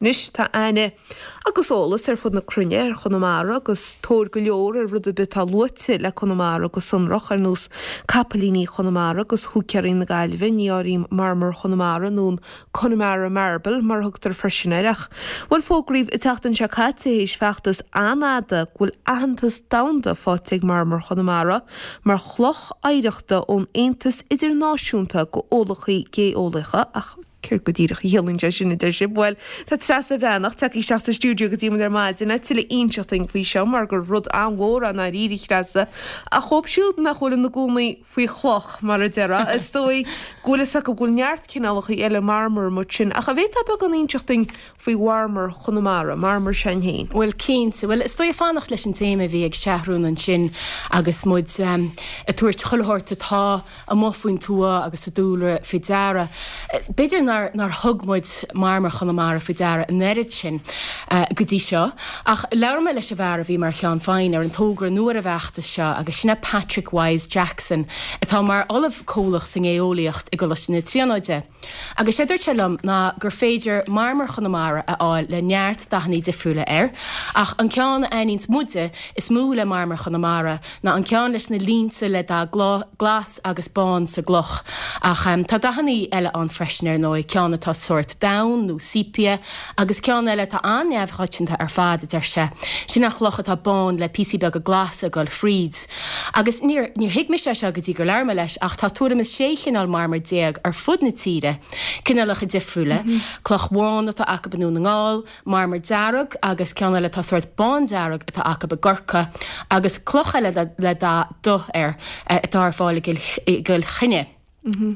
Anois tá aithne agus eolas ar fud na cruinne ar Chonamara agus tóir go leor ar rud ar bith atá luaite le Conamara go sonrach, ar nós capaillíní Chonamara agus húicéirí na Gaillimhe, ní áirím marmar Chonamara nó an Connemara Marble mar a thugtar freisin air. Ach, bhuel, fógraíodh an tseachtain seo caite, théis feachtas an-fhada, go bhfuil aitheantas domhanda faighte ag marmar Chonamara mar chloch oidhreachta ón Aontas Idirnáisiúnta d'Eolaithe Géolaíocha, ach. Céard go díreach a chiallaíonn sé sin, a deir sibh? Bhuel, tá Treasa Bhreathnach tagtha isteach sa stiúideo go dtí muid ar maidin le tuilleadh a inseacht dúinn faoi seo mar gur rud an-mhór é i ndáiríre, a Threasa. Ach dhóibh siúd nach bhfuil ina gcónaí faoi chloch, mar a déarfá, is dóigh go bhfuil fhios acu go bhfuil neart cineálacha eile marmair amuigh ansin. Ach an bhféadfá beagán a inseacht dúinn faoi mharmar Chonamara, marmar s'againn féin? Bhuel, cinnte. Bhuel, is dóigh fanacht leis an téama a bhí ag Seathrún ansin agus muid ag tabhairt chuile shórt atá amuigh faoin tuath agus sa dúlra faoi deara. B'fhéidir nár nár thug muid marmar Chonamara faoi deara an oiread sin go dtí seo, ach labhair mé leis an bhfear a bhí mar cheann feadhain ar an togra nó ar an bhfeachtas seo agus sin é Patrick Wyse Jackson atá mar ollamh comhlach sa nGéolaíocht i gColáiste na Tríonóide. Agus sé dúirt sé liom ná gur féidir marmar Chonamara a fháil le neart dathannaí difriúla air, ach an ceann a aithníonns muide is mó le marmar Chonamara ná an ceann leis na línte le dath glas agus bán sa gcloch. Ach tá dathannaí eile ann freisin ar ndóigh, ceann atá sórt donn nó sepia agus ceann eile atá an-neamhchoitianta ar fad, a deir sé. Sin an chloch atá bán le píosaí beaga glasa ag dul fríd. Agus níor, níor thuig mise é seo go dtí gur labhair mé leis, ach tá tuairim is 16 chineál marmair ar fud na tíre, cineálacha difriúla, cloch bhán atá acu i nDún na nGall, marmar dearg agus ceann eile atá sórt bándearg atá acu i gCorcaigh, agus cloch eile le dath dubh air atá ar fáil i gCill Chainnigh.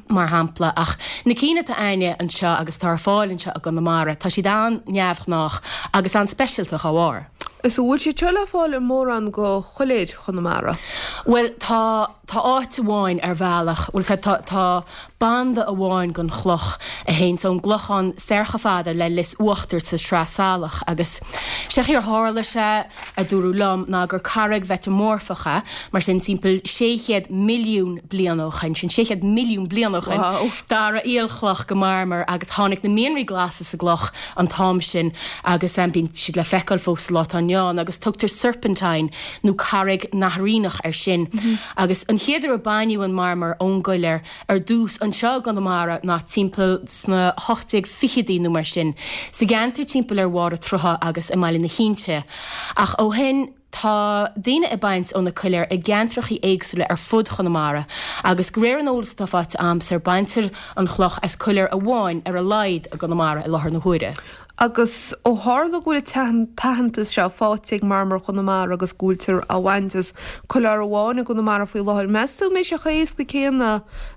mar shampla, ach na cinn atá a'inne anseo agus atá ar fáil anseo i gConamara, tá siad an-neamhghnách agus an-speisialta dá bharr. Is an bhfuil siad seo le fáil i mórán de choiléir Chonamara? Bhuel, tá, tá áit amháin ar bhealach, bhuel, tá, tá, tá banda amháin den chloch a théanns ón gClochán soir chomh fada le Lios Uachtair sa Sraith Salach agus sé chaoi ar tharla sé, a dúradh liom ná gur carraig mheiteamorfach é, mar sin timpeall 600 milliún bliain ó shoin, sin 600 milliún bliain ó shoin, d'athraigh aolchloch go marmar agus tháinig na mianraí glasa sa gcloch an t-am sin agus bíonn siad le feiceáil fós sa lá atá inniu ann agus tugtar serpentine nó carraig nathraíneach air sin. Agus an chéad uair a baineadh an marmar ón gcoiléar, ar dtús anseo i gConamara ná timpeall sna 1820idí nó mar sin, sa gceantar timpeall ar Bharr an tSrutha agus i mBaile na hInse. Ach ó shin tá daoine ag baint ó na coiléir i gceantrachaí éagsúla ar fud Chonamara agus de réir an eolais atá faighte a'msa baintear an chloch as coiléar amháin ar a laghad i gConamara i láthair na huaire. Agus ó tharla go bhfuil an t-aitheantas seo faighte ag Marmar Chonamara agus go bhfuiltear á bhaint as coileár amháin i gConamara faoi láthair, meas tú an mbeidh sé chomh héasca céanna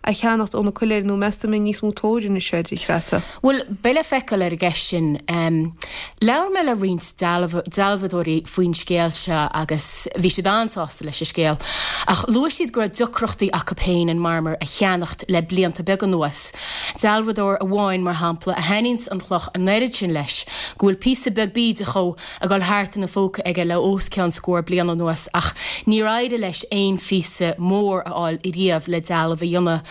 a cheannacht ó na coiléir nó meas tú an mbeidh níos mó tóir anois air, a Threasa? Bhuel, beidh le feiceáil ar an gceist sin. Labhair mé le roinnt dealbhadóirí faoin scéal seo agus bhí siad an-sásta leis an scéal. Ach luaigh siad go raibh deacrachtaí acu féin an marmar a cheannacht le blianta beaga anuas. Dealbhadóir amháin, mar shampla, a thaitníonns an chloch an oiread sin leis go bhfuil píosa beag bídeach dhó ag dul thart ina phóca aige le os cionn scór bliain anuas ach níor éirigh leis aon phíosa mór a fháil riamh le dealbh a dhéanamh.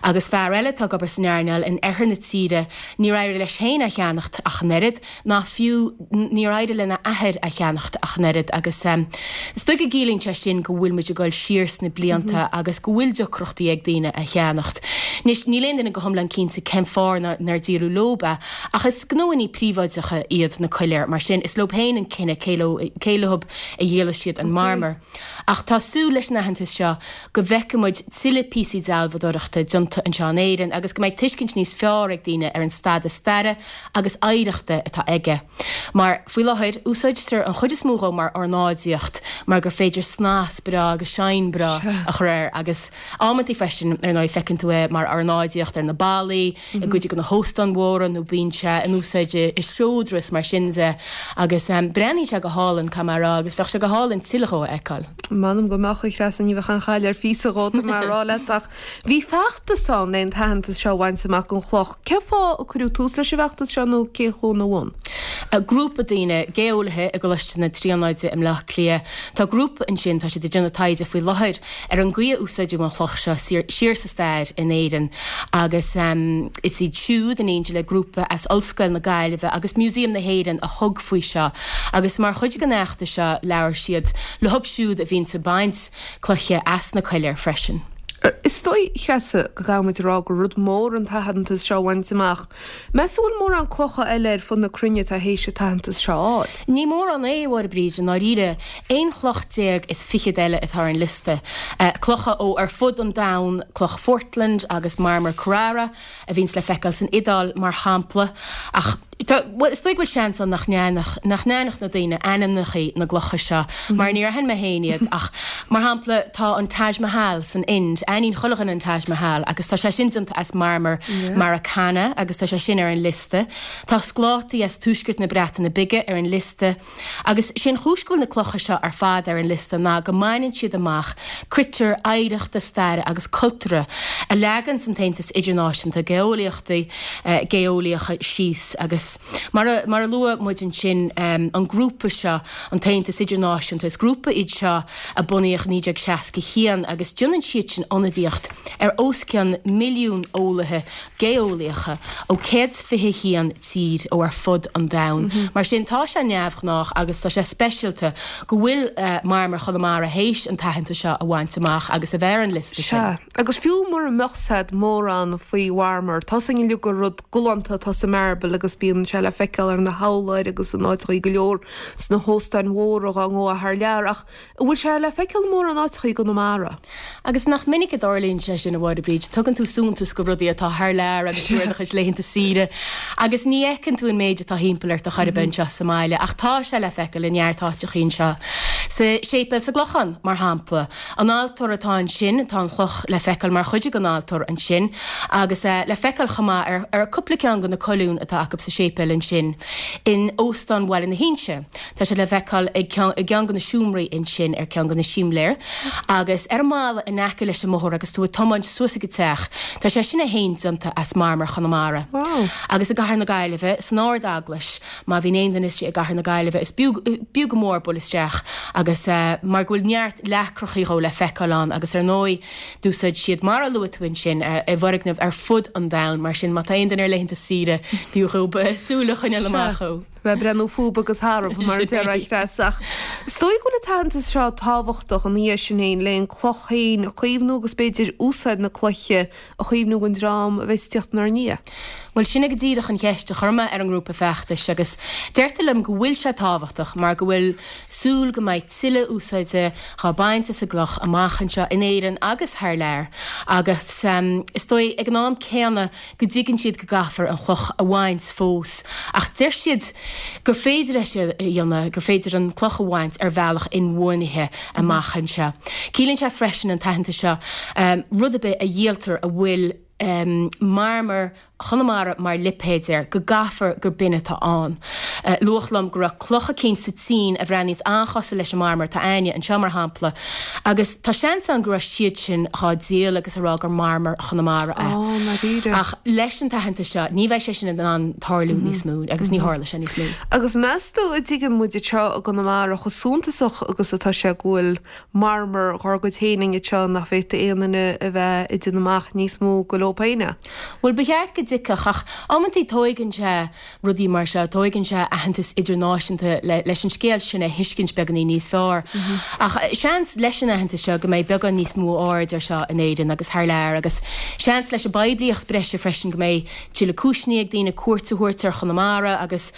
Agus fear eile atá ag obair san earnáil in oirthear na tíre, níor éirigh leis féin é a cheannacht ach an oiread. ná fiú níor éirigh lena athair a cheannacht ach an oiread agus is dóigh go gciallaíonn sé sin go bhfuil muid ag dul siar sna blianta agus go bhfuil deacrachtaí ag daoine a cheannacht. Anois, níl aon duine go hiomlán cinnte cén fáth nár díoladh leob é ach is gnóannaí príobháideacha iad na coiléir mar sin is leob féin an cinneadh cé leo cé leob a dhíolfaidh siad an marmar. Ach tá súil leis an aitheantas seo go bhfeicfidh muid tuilleadh píosaí dealbhadóireachta déanta anseo in Éirinn agus go mbeidh tuiscint níos fearr ag daoine ar an stadas staire agus oidhreachta atá aige. Mar, faoi láthair, úsáidtear an chuid is mó dhó mar ornáidíocht mar gur féidir snas breá agus shine breá a chur air agus amantaí freisin, ar ndóigh, feiceann tú é mar ornáidíocht ar na ballaí, i gcuid de na hóstáin mhóra nó bíonn sé in úsáid i seodra is mar sin de agus breathnaíonn sé go hálainn, caithfidh mé a rá, agus bheadh sé go hálainn tuilleadh dhó a fheiceáil. M'anam go mbeadh, a Threasa, ní bheadh aon chaill ar phíosa dhó, tá mé a rá leat ach bhí feachtas ann le an t-aitheantas seo a bhaint amach don chloch. Cén fáth a cuireadh tús leis an bhfeachtas seo nó cé chuaigh ina bhun? Grúpa daoine, geolaithe i gColáiste na Tríonóide i mBleá Cliath, tá grúpa ansin, tá siad ag déanamh taighde faoi láthair ar an gcaoi a úsáideadh an chloch seo siar sa stair in Éirinn agus is iad siúd, in éindí le grúpa as Ollscoil na Gaillimhe agus Museum na hÉireann a thug faoi seo agus mar chuid den fheachtas seo labhair siad leo siúd a bhíonns ag baint cloiche as na coiléir freisin. Is dóigh, a Threasa, go gcaithfidh muid a rá gur rud mór an t-aitheantas seo a bhaint amach. Meas tú an bhfuil mórán clocha eile ar fud na cruinne atá théis an t-aitheantas seo a fháil? Ní mórán é, a Mháire Bríd, i ndáiríre. Aon chloch déag is fichead eile atá ar an liosta. Clocha ó ar fud an domhain, cloch Phortland agus marmar Carrara, a bhíonns le feiceáil san Iodáil, mar shampla. Ach. Tá, bhuel, is dóigh go bhfuil seans ann nach n-aithneodh, nach n-aithneodh na daoine ainmneachaí na gclocha seo, mar níor aithin mé féin iad, ach, mar shampla, tá an Taj Mahal san Ind, aithníonn chuile dhuine an Taj Mahal, agus tá sé sin déanta as marmar Marakana, agus tá sé sin ar an liosta. Tá sclátaí as tuaisceart na Breataine Bige ar an liosta. Agus sé an chúis go bhfuil na clocha seo ar fad ar an liosta ná go mbaineann siad amach critéir oidhreachta staire agus cultúrtha a leaganns an tAontas Idirnáisiúnta Geolaíochtaí Geolaíocha síos. Agus mar a mar a luaigh muid ansin an grúpa seo, an tAontas Idirnáisiúnta, is grúpa iad seo a bunaíodh i 1961 agus déanann siad sin ionadaíocht ar os cionn milliún eolaithe geolaíocha ó 121 tír ó ar fud an domhain. Mar sin, tá sé neamhghnách agus tá sé speisialta go bhfuil marmar Chonamara théis an t-aitheantas seo a bhaint amach agus a bheith ar an liosta sin. Sea, agus fiú mura mbeadh 's a'd mórán faoi mharmar, tá 's againn uilig gur rud galánta atá sa marble agus bíonn sé le feiceáil ar na hurláir agus in áiteachaí go leor sna hóstáin mhóra dhá ngabhfá thar lear ach An bhfuil sé le feiceáil i mórán áiteachaí i gConamara? Agus nach minic a dtarlaíonn sé sin, a Mháire Bríd, tugann tú suntas go rudaí atá thar lear agus tú ar do chuid laethanta saoire agus ní fheiceann tú an méid atá thimpeall ort ar chor ar bith anseo sa mbaile ach tá sé le feiceáil i neart áiteachaí anseo. Sa séipéal sa gClochán, mar shampla. An altóir atá ansin, tá an chloch le feiceáil mar chuid den altóir ansin agus le feiceáil chomh maith ar ar cúpla ceann de na colúin atá acu sa séipéal ansin in Óstán Bhaile na hInse. Tá sé le feiceáil i gceann de na seomraí ansin ar ceann de na simléir agus ar an mballa in aice leis an mbóthar agus tú ag tiomáint suas ag an teach. Tá sé sin é féin déanta as marmar Chonamara. Agus i gCathair na Gaillimhe, san Ard-Eaglais, má bhíonn aon duine istigh i gCathair na Gaillimhe, is b'fhiú go mór bualadh isteach agus mar go bhfuil neart leacrachaí dhó le feiceáil ann agus ar ndóigh d'úsáid siad, mar a luaigh tú ansin, i bhfoirgnimh ar fud an domhain. Mar sin má tá aon duine ar laethanta saoire, b'fhiú dhóibh súil a choinneáil amach dhó. Bheith ag breathnú fúb agus tharb, mar a déarfá, a Threasa. Ach is dóigh go bhfuil an t-aitheantas seo tábhachtach ina dhiaidh sin féin le an cloch féin a chaomhnú agus b'fhéidir úsáid na cloiche a chaomhnú don dream a bheas ag tíocht inár ndiaidh. Bhuel, sin é go díreach an cheist a chuir mé ar an ngrúpa feachtais agus deirtear liom go bhfuil sé tábhachtach mar go bhfuil súil go mbeidh tuilleadh úsáide dhá baint as an gcloch amach anseo in Éirinn agus thar lear agus is dóigh ag an am céanna go dtuigeann siad go gcaithfear an chloch a bhaint fós ach deir siad gur féidir é sin a dhéanamh, gur féidir an cloch a bhaint ar bhealach inbhuanaithe amach anseo. Ciallaíonn sé freisin an t-aitheantas seo rud ar bith a dhíoltar a bhfuil marmar Chonamara mar lipéad air, go gcaithfear gur b'in atá ann. Luadh liom go raibh cloch eicínt sa tSín a bhreathnaíonns an-chosúil leis an marmar atá a'inne anseo, mar shampla, Agus tá seans ann go raibh siad sin dhá díol agus a rá gur marmar Chonamara é. Á, ndáiríre. Ach leis an t-aitheantas seo, ní bheidh sé sin in ann tarlú níos mó agus ní tharlóidh sé níos mó. Agus meas tú an dtuigeann muid anseo i gConamara chomh suntasach agus atá sé go bhfuil marmar dhár gcuid féin againn anseo nach bhféadfadh aon duine a bheith ag déanamh amach níos mó go leo féin é? Bhuel, ba cheart go dtuigfeadh ach amantaí tóigeann sé rudaí mar seo, tóigeann sé aitheantas idirnáisiúnta leis an scéal sin a thuiscint beagáinín níos fearr. Ach seans leis an aitheantas seo go mbeidh beagán níos mó aird ar seo in Éirinn agus thar lear agus seans leis an bpoiblíocht breise freisin go mbeidh tuilleadh cúiseanna ag daoine cuairt a thabhairt ar Chonamara agus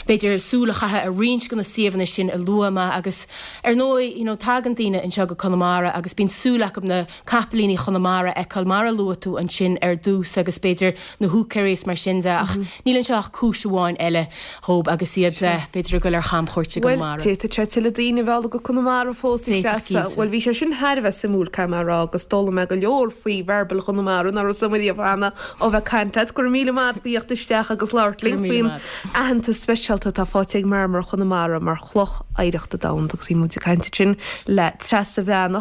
b'fhéidir súil a chaitheamh ar roinnt de na suíomhanna sin a luaigh mé agus ar ndóigh you know tagann daoine anseo go Conamara agus bíonn súil acu na capaillíní Chonamara a fheiceáil mar a luaigh tú ansin ar dtús agus b'fhéidir na húicéirí is mar sin de ach níl anseo ach cúis amháin eile dhóib agus iad b'fhéidir ag dul ar chamchuairt i Bhuel, gConamara. d'fhéadfadh sé tuilleadh daoine a mhealladh go Conamara fós, a D'fhéadfadh, Threasa. cinnte. Bhuel, bhí sé sin thar a bheith suimiúil, caithfidh mé a rá, agus d'fhoghlaim mé go leor faoi mharbal Chonamara nach raibh 's agam riamh cheana ó bheith ag caint leat. Go raibh míle maith agat faoi theacht isteach agus labhairt Go raibh linn míle faoin maith. aitheantas speisialta atá faighte ag marmar Chonamara mar chloch oidhreachta domhanda agus bhí muid ag caint ansin le Treasa Bhreathnach.